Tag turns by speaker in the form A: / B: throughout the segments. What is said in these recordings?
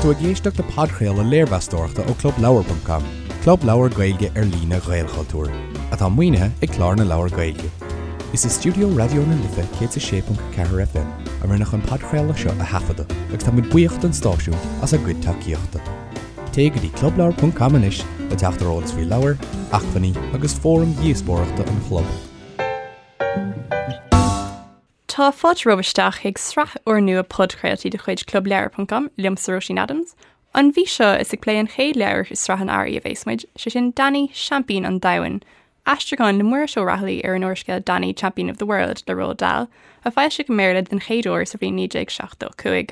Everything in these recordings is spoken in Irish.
A: tú ag éisteacht le podchraoladh léirmheastóireachta ó ClubLeabhar.com, club leabhar Gaeilge ar líne Ghaelchultúir, atá maoinithe ag Clár na Leabhar Gaeilge. Is i stiúideo Raidió na Life 106.4 FM a rinneadh an podchraoladh seo a thaifeadadh agus tá muid buíoch don stáisiún as a gcuid tacaíochta. Téigh go dtí clubleabhar.com anois le teacht ar eolas faoi leabhair, acmhainní agus fóraim dhíospóireachta an chlub.
B: Tá fáilte romhaibh isteach chuig sraith úrnua podchraoltaí de chuid Clubleabhar ponc com, liomsa Róisín Adams. An mhí seo is ag plé an chéad leabhar i sraith an Earraigh a bhéas muid, sé sin Danny, Seaimpín an Domhain, aistriúchán le Muiris Ó Raghallaigh ar an úrscéal Danny, Champion of the World le Roald Dahl, a foilsíodh i mBéarla den chéad uair sa bhliain 1975.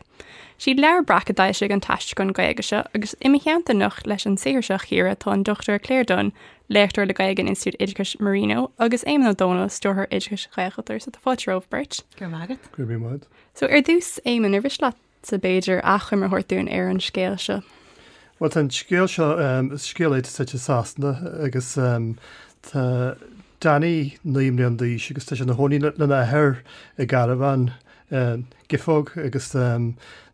B: Siad Leabhar Breac a d'fhoilsigh an t-aistriúchán Gaeilge seo agus i mo theannta anocht leis an saothar seo a chíoradh tá an Dr Claire Dunne, léachtóir le Gaeilge in Institiúid Oideachais Marino, agus Éamonn Ó Dónaill, Stiúrthóir Oideachais Ghaelchultúir. So tá fáilte romhaibh beirt.
C: Go raibh maith agat.
D: Go raibh maith agat.
B: So ar dtús, Éamonn, ar mhiste leatsa b'fhéidir achoimre a thabhairt dúinn ar an scéal seo?
D: Bhuel, tá an scéal seo, is scéal é atá suite i Sasana agus tá Danny 9 mbliana d'aois agus tá sé ina chónaí lena athair i gcarbhán Giofóg agus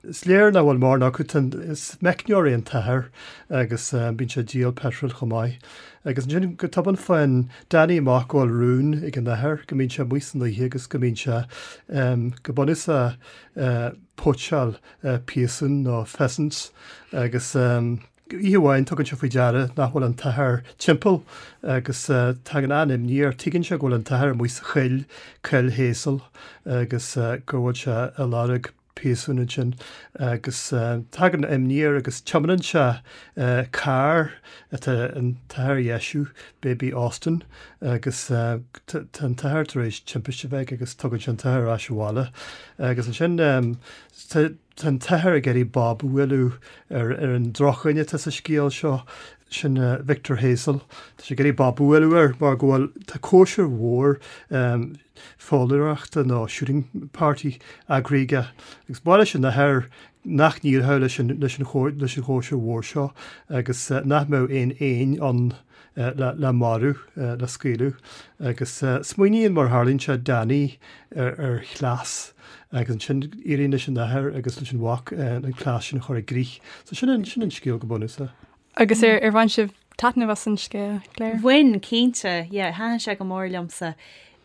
D: is léir nach bhfuil mórán acu. Is meicneoir é an t-athair agus bíonn sé ag díol peitril chomh maith. Agus ansin go tobann faigheann Danny amach go bhfuil rún ag an athair go mbíonn sé amuigh san oíche agus go mbíonn sé go bunúsach poacháil piasún nó pheasants agus Oíche amháin tugann sé faoi deara nach bhfuil an t-athair timpeall agus tagann an-imní air. Tuigeann sé go bhfuil an t-athair amuigh sa choill, Coill Hazel, agus go bhfuil sé ag lorg piasún ansin. Agus tagann imní air agus tiomáineann sé carr atá an t-athair a dheisiú, Baby Austin, agus tá an t-athair tar éis timpiste a bheith aige agus tugann sé an t-athair ar ais abhaile. Agus ansin tá. Tá an t-athair ag iarraidh bob a bhualadh ar ar an drochdhuine atá sa scéal seo, sin Victor Hazel. Tá sé ag iarraidh bob a bhualadh air mar go bhfuil, tá cóisir mhór foghlaeireachta nó shooting party eagraithe aige agus ba mhaith leis an athair nach n-éireodh leis an leis an leis an chóisir mhór seo agus nach mbeadh aon éin ann le marú, le scaoileadh. Agus smaoiníonn, mar a tharlaíonn sé, Danny ar chleas agus ansin éiríonn leis an athair agus leis an mhac an cleas sin a chur i gcrích. So sin an, sin an scéal go bunúsach.
B: Agus ar, ar bhain sibh taitneamh as an scéal, Claire?
C: Bhain, cinnte. Yeah, thaitin sé go mór liomsa.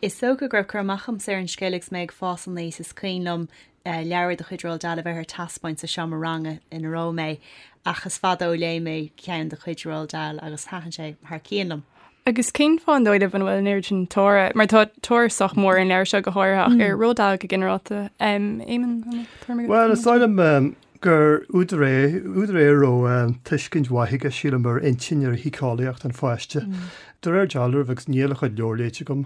C: Is dócha go raibh cur amach agamsa ar an scéal agus mé ag fás aníos. Is cuimhin liom leabhar de chuid Roald Dahl a bheith ar taispeáint sa seomra ranga ina raibh mé ach is fada ó léigh mé ceann de chuid Roald Dahl agus thaitin sé thar cionn liom.
B: Agus cén fáth an dóigh libh an bhfuil an oiread sin tóra, mar tá tóir sách mór ar an leabhar seo go háirithe ach ar Roald Dahl go ginearálta. Éamonn, an bhfuil
D: tuairim agat? Bhuel, is dóigh liom gur údar é, údar é a raibh tuiscint mhaith aige, sílim, ar intinn, ar shíceolaíocht an pháiste. De réir dealraimh, agus níl a chuid leabhar léite agam,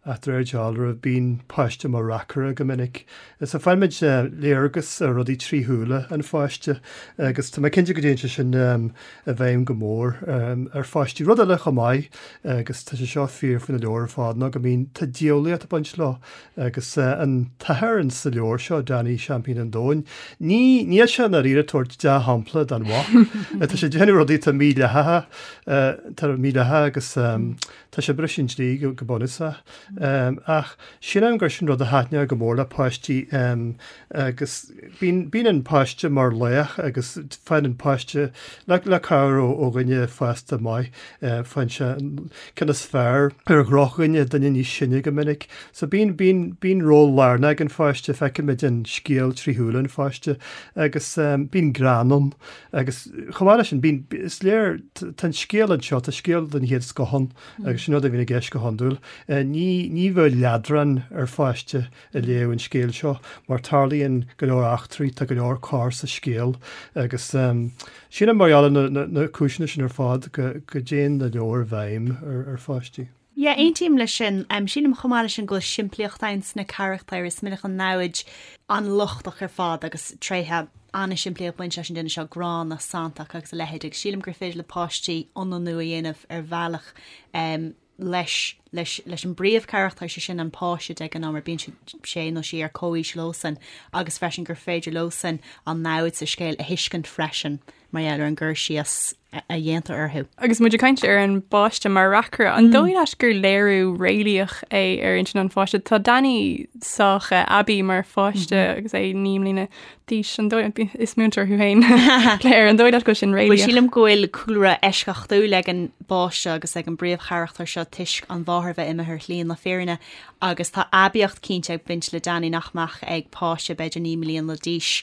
D: Ach de réir dealraimh, bíonn páiste mar reacaire go minic. So faighimid léargas ar rudaí trí shúile an pháiste agus tá mé cinnte go dtéann sé sin i bhfeidhm go mór ar pháistí. Rud eile chomh maith, agus tá sé seo fíor faoi na leabhair ar fad, ná go mbíonn, tá diabhlaíocht ag baint leo agus an t-athair in sa leabhar seo, Danny Seaimpín an Domhain, ní, níl sé i ndáiríre ag tabhairt dea-shampla don mhac. Tá sé ag déanamh rudaí atá mídhleathacha, atá mídhleathach agus Tá sé ag briseadh an dlí go bunúsach. Ach sílim gur sin rud a thaitneodh go mór le páistí agus bíonn, bíonn an páiste mar laoch agus faigheann an páiste, le, le cabhair ó, ó dhuine fásta maith, faigheann sé an ceann is fearr ar dhrochdhuine, duine níos sine go minic. So bíonn, bíonn, bíonn ról lárnach ag an pháiste, feicimid an scéal trí shúile an pháiste agus bíonn greann ann. Agus chomh maith leis sin, bíonn, is léir, tá an scéal anseo, tá scéal den chéad scoth ann agus sin rud a bhíonn i gceist go hiondúil. Ní, ní bheadh leadrán ar pháiste ag léamh an scéil seo mar tarlaíonn go leor eachtraí, tá go leor corr sa scéal agus sílim mar gheall ar na, na, na cúiseanna sin ar fad go, go dtéann na leabhair i bhfeidhm ar, ar pháistí.
C: Yeah, aontaím leis sin. Sílim chomh maith leis sin go bhfuil simplíocht ann sna carachtair. Is minic an namhaid an-lochtach ar fad agus tréithe an-simplí ag baint leis an duine seo, gránna, santach agus a leithéid agus sílim gur féidir le páistí ionannú a dhéanamh ar bhealach leis. leis leis an bpríomhcharachtar, sé sin an páiste de ghnáth mar bíonn sé nó sí ar comhaois leosan agus freisin gur féidir leosan an namhaid sa scéal a thuiscint freisin mar gheall ar an gcur síos a dhéantar orthu.
B: Agus muid ag caint ar an bpáiste mar reacaire, an dóigh leat gur léiriú réalaíoch é ar intinn an pháiste? Tá Danny sách aibí mar pháiste agus é 9 mbliana d'aois, an dóigh, is múinteoir thú féin, Claire, an dóigh leat go bhfuil sin
C: réalaíoch? Bhuel, sílim go bhfuil cúlra eisceachtúil ag an bpáiste agus ag an bpríomhcharachtar seo toisc an mháthair bheith imithe ar shlí na fírinne agus tá aibíocht cinnte ag baint le Danny nach mbeadh ag páiste b'fhéidir 9 mbliana d'aois.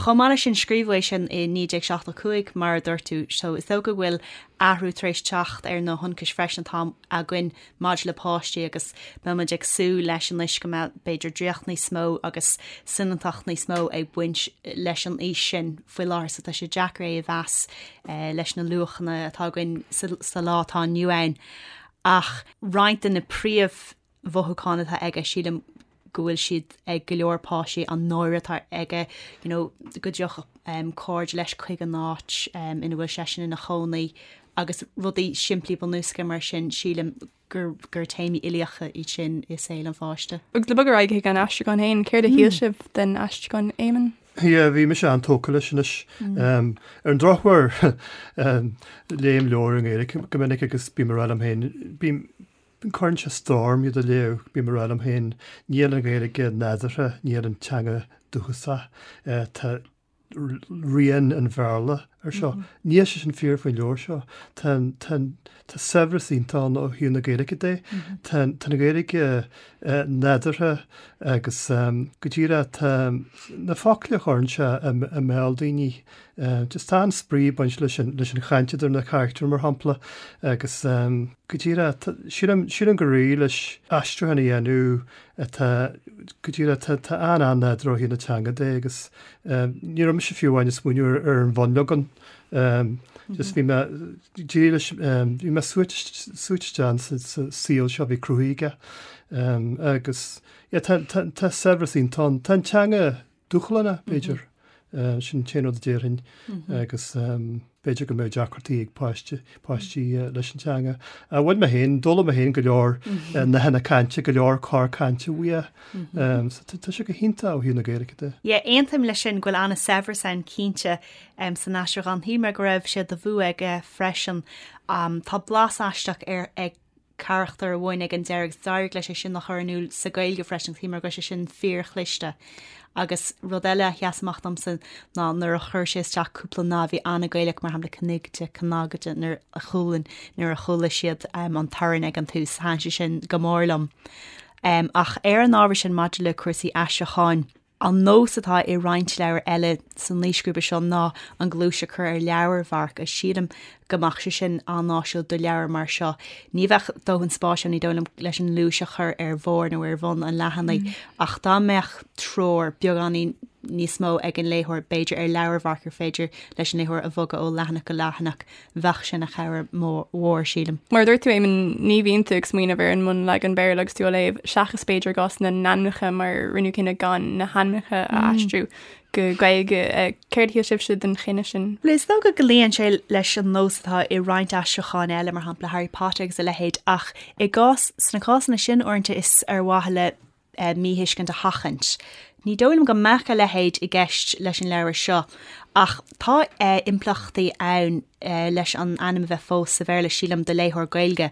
C: Chomh maith leis sin, scríobhadh é sin i 1975 mar a dúirt tú, so is dócha go bhfuil athrú tar éis teacht ar na hionchais freisin atá againn maidir le páistí agus beidh muid ag súil leis anois go mbeadh b'fhéidir draíocht níos mó agus soineantacht níos mó ag baint leis an aois sin faoi láthair so tá sé deacair é a mheas leis na luachanna atá againn sa lá atá inniu ann. Ach roinnt de na príomh-mhothúcháin atá aige sílim go bhfuil siad ag go leor páistí, an náire atá aige, you know, go dtiocfadh um, cairde leis chuig an áit um, ina bhfuil seisean ina chónaí agus rudaí simplí bunúsacha mar sin, sílim gur, gur téamaí uilíocha iad sin i saol an pháiste.
B: Agus le bogadh ar aghaidh chuig an aistriúchán féin, céard a shíl sibh den aistriúchán, Éamonn?
D: Yeah, bhí mise an-tógtha leis anois. Um, ar an drochuair, um, léim leabhair i nGaeilge go minic agus bím ag rá liom féin, bím, Cuireann sé stró orm iad a léamh, bím ag rá liom féin, níl an Ghaeilge nádúrtha, níl an teanga dúchasach, tá rian an Bhéarla ar seo. Níl sé sin fíor faoin leabhar seo. Tá tá tá saibhreas iontach ann ó thaobh na Gaeilge de. Tá tá an Ghaeilge nádúrtha agus go díreach tá na focla a chuireann sé i mbéal daoine Just tá an-spraoi ag baint leis an leis an chaint idir na carachtair mar shampla agus go díreach sílim sílim gur éirigh leis aistriúchán a dhéanamh atá go díreach tá tá an-an-nádúrtha ó thaobh na teanga de agus ní raibh mise fiú amháin ag smaoineamh ar ar an bhunleagan. Just bhí mé díreach leis bhí mé suaite suaite isteach sa sa saol seo a bhí cruthaithe aige agus yeah tá tá tá saibhreas iontach ann. Tá an teanga dúshlánach, b'fhéidir. Sin an t-aon rud a déarfainn agus b'fhéidir go mbeadh deacrachtaí ag páiste, páistí leis an teanga. Bhain mé féin, d'fhoghlaim mé féin go leor nathanna cainte, go leor cor cainte uaidh. So tá sé go hiontach ó thaobh na Gaeilge
C: de. Yeah, aontaím leis sin go bhfuil an-saibhreas ann cinnte san aistriúchán. Shíl mé go raibh sé de bhua aige freisin. Tá blas aisteach ar ag carachtar amháin ag an deireadh agus d'éirigh leis é sin a chur in iúl sa Ghaeilge freisin, shíl mé go raibh sé sin fíorchliste. Agus rud eile a sheas amach domsa ná nuair a chuir sé isteach cúpla nath a bhí an-Ghaelach, mar shampla cniogaide, cnagaide, nuair a chualann, nuair a chuala siad an torann ag an tús, thaitin sé sin go mór liom. Ach ar an ábhar sin maidir le cúrsaí aistriúcháin, An nós atá i roinnt leabhar eile san aoisghrúpa seo ná an ghluais a chur ar leabharmharc agus sílim go mbeadh sé sin an-áisiúil do leabhar mar seo. Ní bheadh dóthain spáis ann, ní dóigh liom, leis an ngluais a chur ar bharr nó ar bhun an leathanaigh ach dá mbeadh treoir beagáinín níos mó ag an léitheoir, b'fhéidir ar leabharmharc ar féidir leis an léitheoir a bhogadh ó leathanach go leathanach, bheadh sé ina chabhair mhór, sílim.
B: Mar a dúirt tú, Éamonn, ní bhíonn tú ag smaoineamh ar an mbunleagan Béarla agus tú á léamh, seachas b'fhéidir i gcás na n-ainmneacha mar rinneadh cinneadh gan na hainmneacha a aistriú go Gaeilge. Céard a shíl sibhse den chinneadh sin?
C: Bhuel, is dócha go luíonn sé leis an nós atá i roinnt aistriúcháin eile, mar shampla Harry Potter agus a leithéid, ach i gcás, sna cásanna sin uaireanta is ar mhaithe le míthuiscint a sheachaint. Ní dóigh liom go mbeadh a leithéid i gceist leis an leabhar seo, ach tá impleachtaí ann leis an ainm a bheith fós sa Bhéarla, sílim, do léitheoir Gaeilge.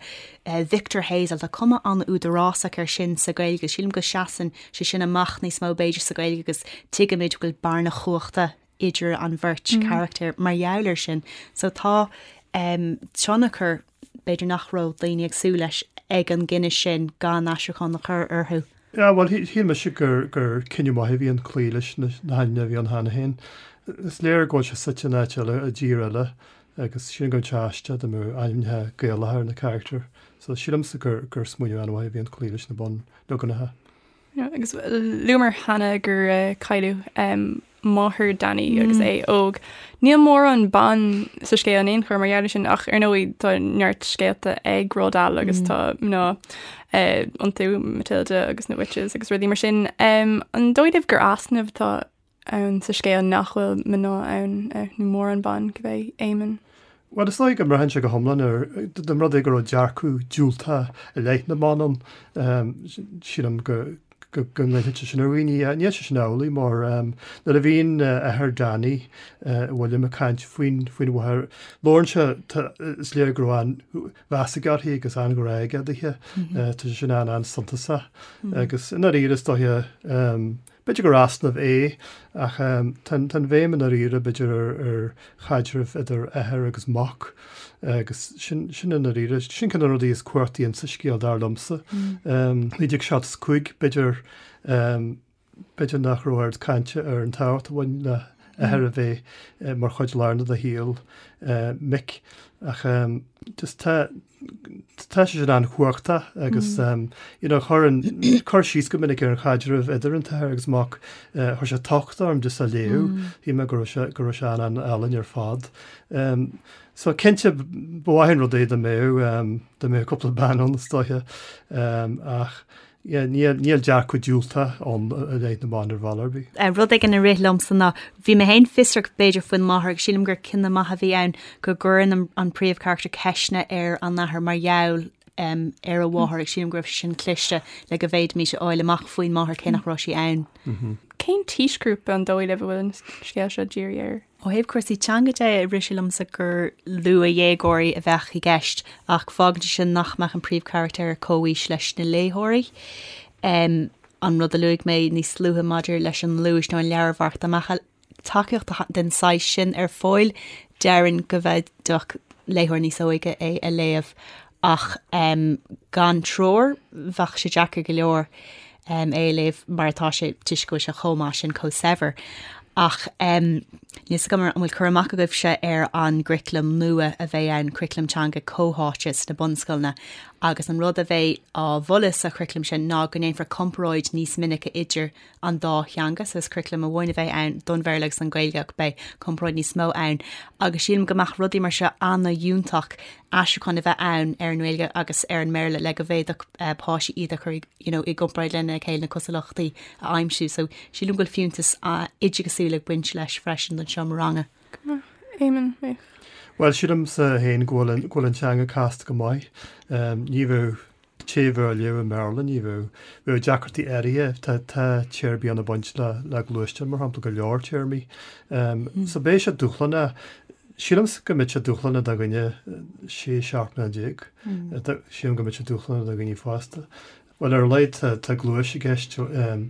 C: Victor Hazel, tá cuma an-údarásach air sin sa Ghaeilge. Sílim go seasann sé sin amach níos mó b'fhéidir sa Ghaeilge agus tuigimid go bhfuil bearna chumhachta idir an bheirt charachtar mar gheall air sin. So tá tionchar b'fhéidir nach raibh daoine ag súil leis ag an gcinneadh sin gan aistriúchán a chur orthu.
D: Yeah, bhuel, shíl mise gur gur cinneadh maith a bhí ann cloí leis na hainmneacha a bhí ann cheana féin. Is léir go bhfuil sé suite in áit eile, i dtír eile, agus sílim go mbeadh sé aisteach dá mbeadh ainmneacha Gaelacha ar na carachtair. So sílimse gur gur smaoineamh an-mhaith a bhí ann cloí leis na bunleaganacha.
B: Agus luamar cheana gur cailleadh máthair Danny agus é óg. Níl mórán ban sa scéal in aon chor mar gheall air sin ach ar ndóigh tá neart scéalta ag Roald Dahl agus tá mná iontu, Matilda agus na Witches agus rudaí mar sin. An dóigh libh gur easnamh atá ann sa scéal nach bhfuil mná ann nó mórán ban, cibé, Éamonn?
D: Bhuel, is dóigh go mbraitheann sé go hiomlán ar, dá mba rud é go raibh dearcadh diúltach i leith na mban ann, sílim go go ngoillfeadh sé sin ar dhaoine. Níl sé sin amhlaidh mar nuair a bhíonn athair Danny, William, ag caint faoin faoin mháthair, labhrann sé, is léir go raibh an-mheas aige uirthi agus an-ghrá aige daoithe. Tá sé sin an-an-suntasach. Agus i ndáiríre is dóiche, B'fhéidir gur easnamh é, ach tá an bhéim i ndáiríre, b'fhéidir, ar chaidreamh idir athair agus mac, agus sin i ndáiríre, sin ceann de na rudaí is cumhachtaí insa scéal, dar liomsa. 1975, b'fhéidir, b'fhéidir nach raibh oiread cainte ar an tábhacht a bhain le athair a bheith mar chuid lárnach de shaol mic, ach just tá, Tá sé sin an-chumhachtach agus you know chuir an cur síos go minic ar an chaidreamh idir an t-athair agus mac, chuir sé tocht orm just á léamh, shíl mé go raibh sé go raibh sé an-an-álainn ar fad. So cinnte ba mhaith an rud é dá mbeadh dá mbeadh cúpla bean ann is dóiche ach Yeah, níl, níl dearcadh diúltach ann i leith na mban ar bhealach ar bith.
C: Rud éigin a rith liomsa ná, bhí mé féin fiosrach b'fhéidir faoin máthair agus sílim gur cinneadh maith a bhí ann go gcuireann an príomhcharachtar ceisteanna ar an athair mar gheall ar a mháthair agus sílim go raibh sé sin cliste le go bhféadfaimis a fháil amach faoin máthair cé nach raibh sí ann.
B: Cén t-aoisghrúpa an dóigh libh a bhfuil an scéal seo dírithe air?
C: Ó thaobh cúrsaí teanga de, rith sé liomsa gur luathdhéagóirí a bheadh i gceist, ach fágann sé sin nach mbeadh an príomhcharachtar ar comhaois leis na léitheoirí. An rud a luaigh mé níos luaithe maidir leis an ngluais nó an leabharmharc, dá mbeadh tacaíocht den saghas sin ar fáil, déarfainn go bhféadfadh léitheoir níos óige é a léamh. Ach gan treoir, bheadh sé deacair go leor é a léamh mar atá sé toisc go bhfuil sé chomh maith sin, chomh saibhir. Ach níl fhios agam an bhfuil cur amach agaibhse ar an gcuraclam nua a bheidh ann, curaclam teanga comhtháite sna bunscoileanna, agus an rud a bheidh á mholadh sa churaclam sin ná go ndéanfar comparáid níos minice idir an dá theanga, so is curaclam amháin a bheidh ann don Bhéarla agus don Ghaeilge ach beidh comparáid níos mó ann agus sílim go mbeadh rudaí mar seo an-fhiúntach aistriúchán a bheith ann ar an nGaeilge agus ar an mBéarla le go bhféadfadh páistí iad a chur you know, i gcomparáid lena chéile na cosúlachtaí a aimsiú. So sílim go bhfuil fiúntas oideachasúil ag baint leis freisin don seomra ranga.
B: Éamonn, mé.
D: Bhuel, sílimse féin go bhfuil go bhfuil an teanga casta go maith. Ní bheadh té a bheadh á léamh i mBéarla, ní bheadh, bheadh deacrachtaí áirithe, tá, tá téarmaí ann ag baint le, le gluaisteáin, mar shampla, go leor téarmaí. So beidh sé dúshlánach, sílimse go mbeidh sé dúshlánach do dhuine 16, 17 mbliana, sílim go mbeidh sé dúshlánach do dhaoine fásta. Bhuel, ar a laghad tá, tá gluais i gceist,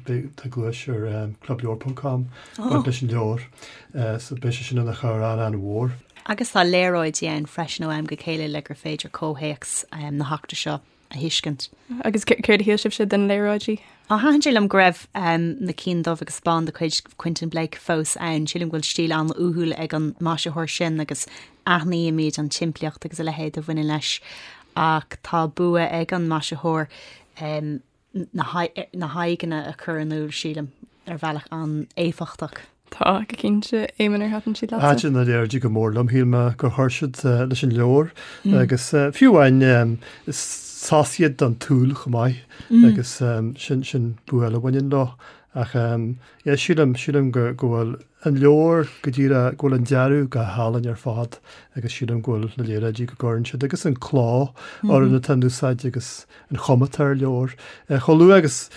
D: beidh, tá gluais ar clubleabhar ponc com, baint leis an leabhar, so beidh sé sin ina chabhair an-an-mhór.
C: Agus tá léaráidí ann freisin ó am go chéile le gur féidir comhthéacs na heachtra seo a thuiscint.
B: Agus céard a shíl sibhse den léaráidí?
C: Á, thaitin sé liom go raibh na cinn dubh agus bán de chuid Quentin Blake fós ann. Sílim go bhfuil stíl an-uathúil ag an maisitheoir sin agus aithnímid an tsimplíocht agus a leithéid a bhaineann leis. Ach tá bua ag an maisitheoir na haghaidheanna a chur in iúl, sílim, ar bhealach an-éifeachtach.
B: Tá, go cinnte. Éamonn, ar thaitin siad leatsa?
D: Thaitin na léaráidí go mór liom. Shíl mé gur chuir siad leis an leabhar agus fiú amháin is sos iad don tsúil chomh maith agus sin sin bua eile a bhaineann leo. Ach yeah, sílim, sílim go go bhfuil an leabhar go díreach, go bhfuil an dearadh go hálainn ar fad agus sílim go bhfuil na léaráidí go gcuireann siad agus an cló orthu atá in úsáid agus an chuma atá ar an leabhar. Chomh luath agus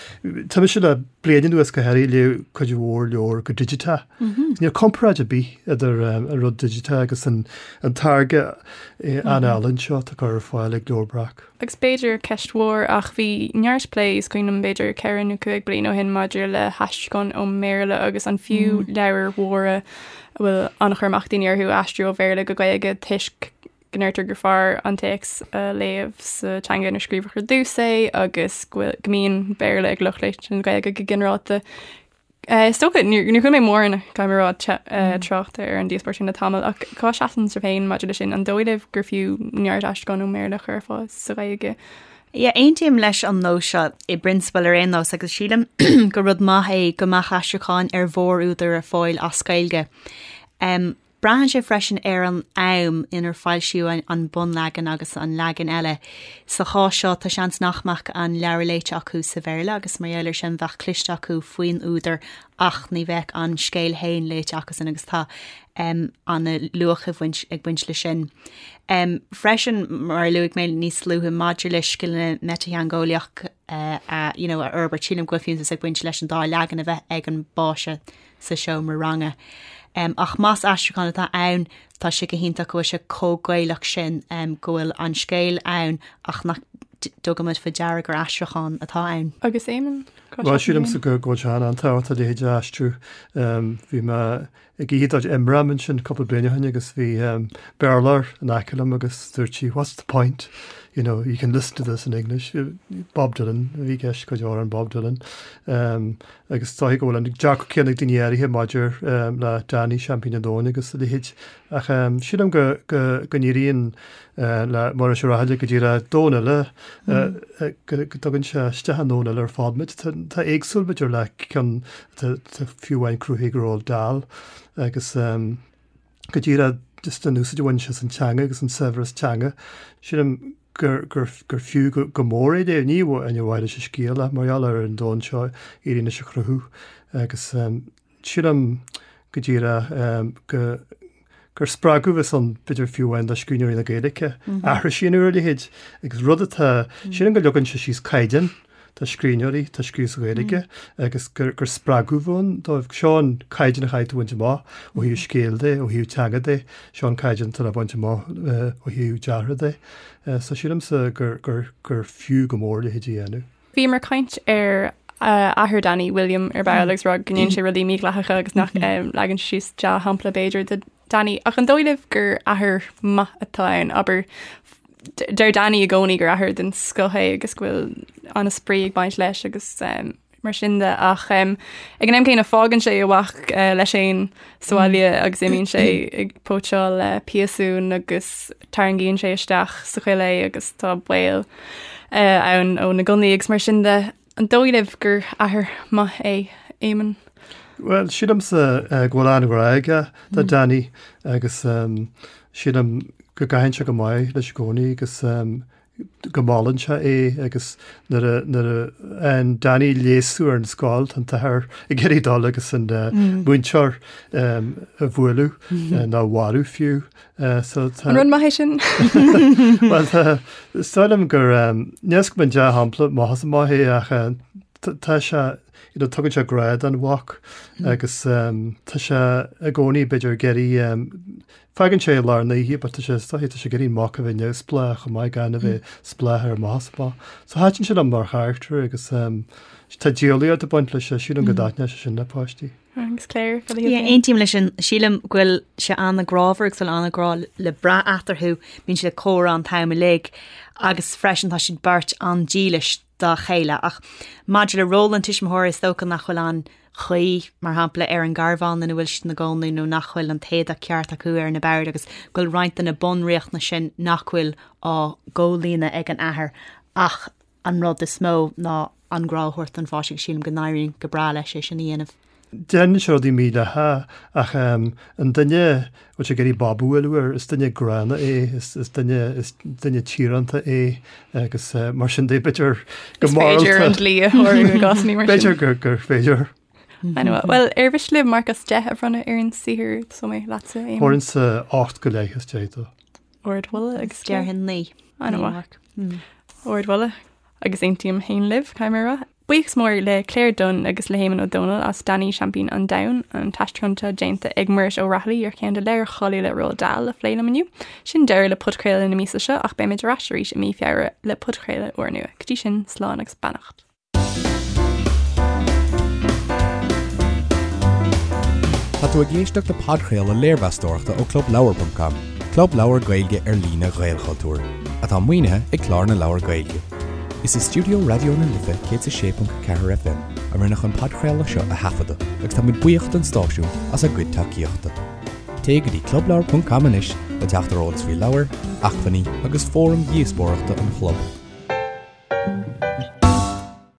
D: tá mise le bliain anuas go háirithe ag léamh cuid mhór leabhar go digiteach. Níl comparáid ar bith idir an rud digiteach agus an táirge an-álainn seo atá curtha ar fáil ag Leabhar Breac.
B: Agus b'fhéidir ceist mhór ach bhí neart plé, is cuimhin liom b'fhéidir ceithre nó cúig bliana ó shin maidir le haistriúchán ón mBéarla agus an fiú leabhair mhóra a bhfuil an-chur amach daoine orthu a aistriú ó Bhéarla go Gaeilge toisc go ndeirtear gur fearr an téacs a léamh sa teanga inar scríobhadh ar dtús é agus go bhfuil, go mbíonn Béarla ag lucht léite na Gaeilge go ginearálta. Is dócha, níor chuala mé mórán, caithfidh mé a rá, trácht ar an díospóireacht sin le tamall, ach cá seasann sibh féin maidir leis sin? An dóigh libh gur fiú neart aistriúchán ón mBéarla a chur ar fáil sa Ghaeilge?
C: Yeah, aontaím leis an nós seo i bprionsabal ar aon nós agus sílim gur rud maith é go mbeadh aistriúcháin ar mhórúdair ar fáil as Gaeilge. Braitheann sé freisin ar an am inar foilsíodh an bunleagan agus an leagan eile. Sa chás seo, tá seans nach mbeadh an leabhar léite acu sa Bhéarla agus mar gheall air sin bheadh cloiste acu faoin údar ach ní bheadh an scéal féin léite acusan agus tá an-luach ag baint ag baint leis sin. Freisin, mar a luaigh mé níos luaithe maidir le scileanna meititheangeolaíoch a you know a fhorbairt, sílim go bhfuil fiúntas ag baint leis an dá leagan a bheith ag an bpáiste sa seomra ranga. Ach más aistriúchán atá ann, tá sé go hiontach go bhfuil sé chomh Gaelach sin, go bhfuil an scéal ann ach nach dtugaimid faoi deara gur aistriúchán atá ann.
B: Agus Éamonn,
D: cá Bhuel, sílimse go bhfuil sé an-tábhachtach a leithéid a aistriú. Bhí mé ag oíche de chuid Imram ansin cúpla bliain ó shin agus bhí Béarlóir in aice liom agus dúirt sí, what's the point? You know, you can listen to this in English. Bob Dylan, a bhí i gceist, cuid amhrán Bob Dylan. Agus is dóiche go bhfuil an dearcadh céanna ag daoine áirithe maidir le Danny, Seaimpín an Domhain agus a leithéid. Ach sílim go n-éiríonn le Muiris Ó Rathaille go díreach domhan eile, go dtugann sé isteach i ndomhan eile ar fad muid. Tá éagsúil b'fhéidir le ceann atá fiú amháin cruthaithe ag Roald Dahl agus go díreach just an úsáid a bhain sé as an teanga agus an saibhreas teanga. Sílim gur gur fiú go mór é léamh, ní amháin ar mhaithe leis an scéal ach mar gheall ar an domhan seo a éiríonn leis a chruthú agus sílim go díreach go gur spreagadh a bheas ann b'fhéidir fiú amháin do scríbhneoirí na Gaeilge aithris a dhéanamh ar a leithéid agus rud atá, sílim go leagann sé síos caighdeán do scríbhneoirí atá ag scríobh sa Ghaeilge agus gur spreagadh a bheadh ann dóibh. Seo an caighdeán a chaithfidh tú a bhaint amach ó thaobh scéil de, ó thaobh teanga de, seo an caighdeán atá le baint amach ó thaobh deartha de. So sílimse gur, gur, gur fiú go mór a leithéid a dhéanamh.
B: Bhíomar ag caint ar athair Danny, William, ar ball agus rá go ndéanann sé rudaí mídhleathacha agus nach leagann sé síos dea-shampla b'fhéidir do Danny. Ach an dóigh libh gur athair maith atá ann? Abair, deir Danny i gcónaí gur athair den scoth é agus go bhfuil an-spraoi ag baint leis agus mar sin de ach ag an am céanna fágann sé a mhac leis féin sa bhaile agus imíonn sé ag póitseáil piasún agus tarraingíonn sé isteach sa choill é agus tá baol ann ó na gunnaí agus mar sin de. An dóigh libh gur athair maith é Éamonn?
D: Bhuel, sílimse go bhfuil an-ghrá aige do Danny agus sílim go gcaitheann sé go maith leis i gcónaí agus go molann sé é agus nuair a nuair a fhaigheann Danny léasadh ar an scoil tá an t-athair ag iarraidh dul agus an múinteoir a bhualadh nó a mharú fiú.
B: So tá An rud maith é sin?
D: Bhuel tá is dóigh liom gur níl a fhios agam an dea-shampla maith is maith é ach tá sé you know, tugann sé grá don mhac agus tá sé i gcónaí b'fhéidir ag iarraidh Fágann sé i lár na hoíche but tá sé is dóiche tá sé ag iarraidh an mac a bheith neamhspleách chomh maith gan a bheith spleách air amach is amach. So thaitin sé liom mar charachtar agus tá diabhlaíocht ag baint leis, sílim go dtaitneodh sé sin le páistí.
B: Agus Claire,
C: cad a shíl tú? Aontaím leis sin. Sílim go bhfuil sé an-ghrámhar agus bhfuil an-ghrá le brath eatarthu. Bíonn siad ag comhrá an t-am uilig agus freisin tá siad beirt an-dílis dá chéile. Ach maidir le ról an tuismitheora is dócha nach bhfuil an chaoi, mar shampla, ar an gcarbhán ina bhfuil siad ina gcónaí nó nach bhfuil an t-éadach ceart acu ar na boird agus go bhfuil roinnt de na bunriachtanais sin nach bhfuil á gcomhlíonadh ag an athair ach an rud is mó ná an grá a thabhairt don pháiste agus sílim go n-éiríonn go breá leis é sin a dhéanamh.
D: Déanann sé rudaí mídhleathacha ach an duine a bhfuil sé ag iarraidh bob a bhualadh air, is duine gránna é, is duine, is duine tíoránta é agus mar sin de b'fhéidir
B: go Is féidir an dlí a shárú i gcásanna
D: mar sin. B'fhéidir gur, gur féidir.
B: Anyway, Bhuel, ar mhiste libh marc as 10 a bhronnadh ar an saothar tosóidh mé leatsa,
D: Éamonn. Thabharfainnse 8 go leith as 10 dó.
B: Ardmholadh agus
C: Déarfainn 9.
B: An-mhaith. Ardmholadh agus aontaím féin libh, caithfidh mé a rá. Buíochas mór le Claire Dunne agus le hÉamonn Ó Dónaill as Danny Seaimpín an Domhain, an t-aistriúchán atá déanta ag Muiris Ó Raghallaigh ar cheann de leabhair cháiliúla Roald Dahl a phlé liom inniu. Sin deireadh le podchraoladh na míosa seo ach beimid ar ais arís i mí Feabhra le podchraoladh úrnua. Go dtí sin, slán agus beannacht.
A: Tá tú ag éisteacht le podchraoladh léirmheastóireachta ó ClubLeabhar.com, club leabhar Gaeilge ar líne Ghaelchultúir, atá maoinithe ag Clár na Leabhar Gaeilge. Is i stiúideo Raidió na Life 106.4 FM a rinneadh an podchraoladh seo a thaifeadadh agus táimid buíoch don stáisiún as a gcuid tacaíochta. Téigh go dtí clubleabhar.com anois le teacht ar eolas faoi leabhair, acmhainní agus fóraim dhíospóireachta an chlub.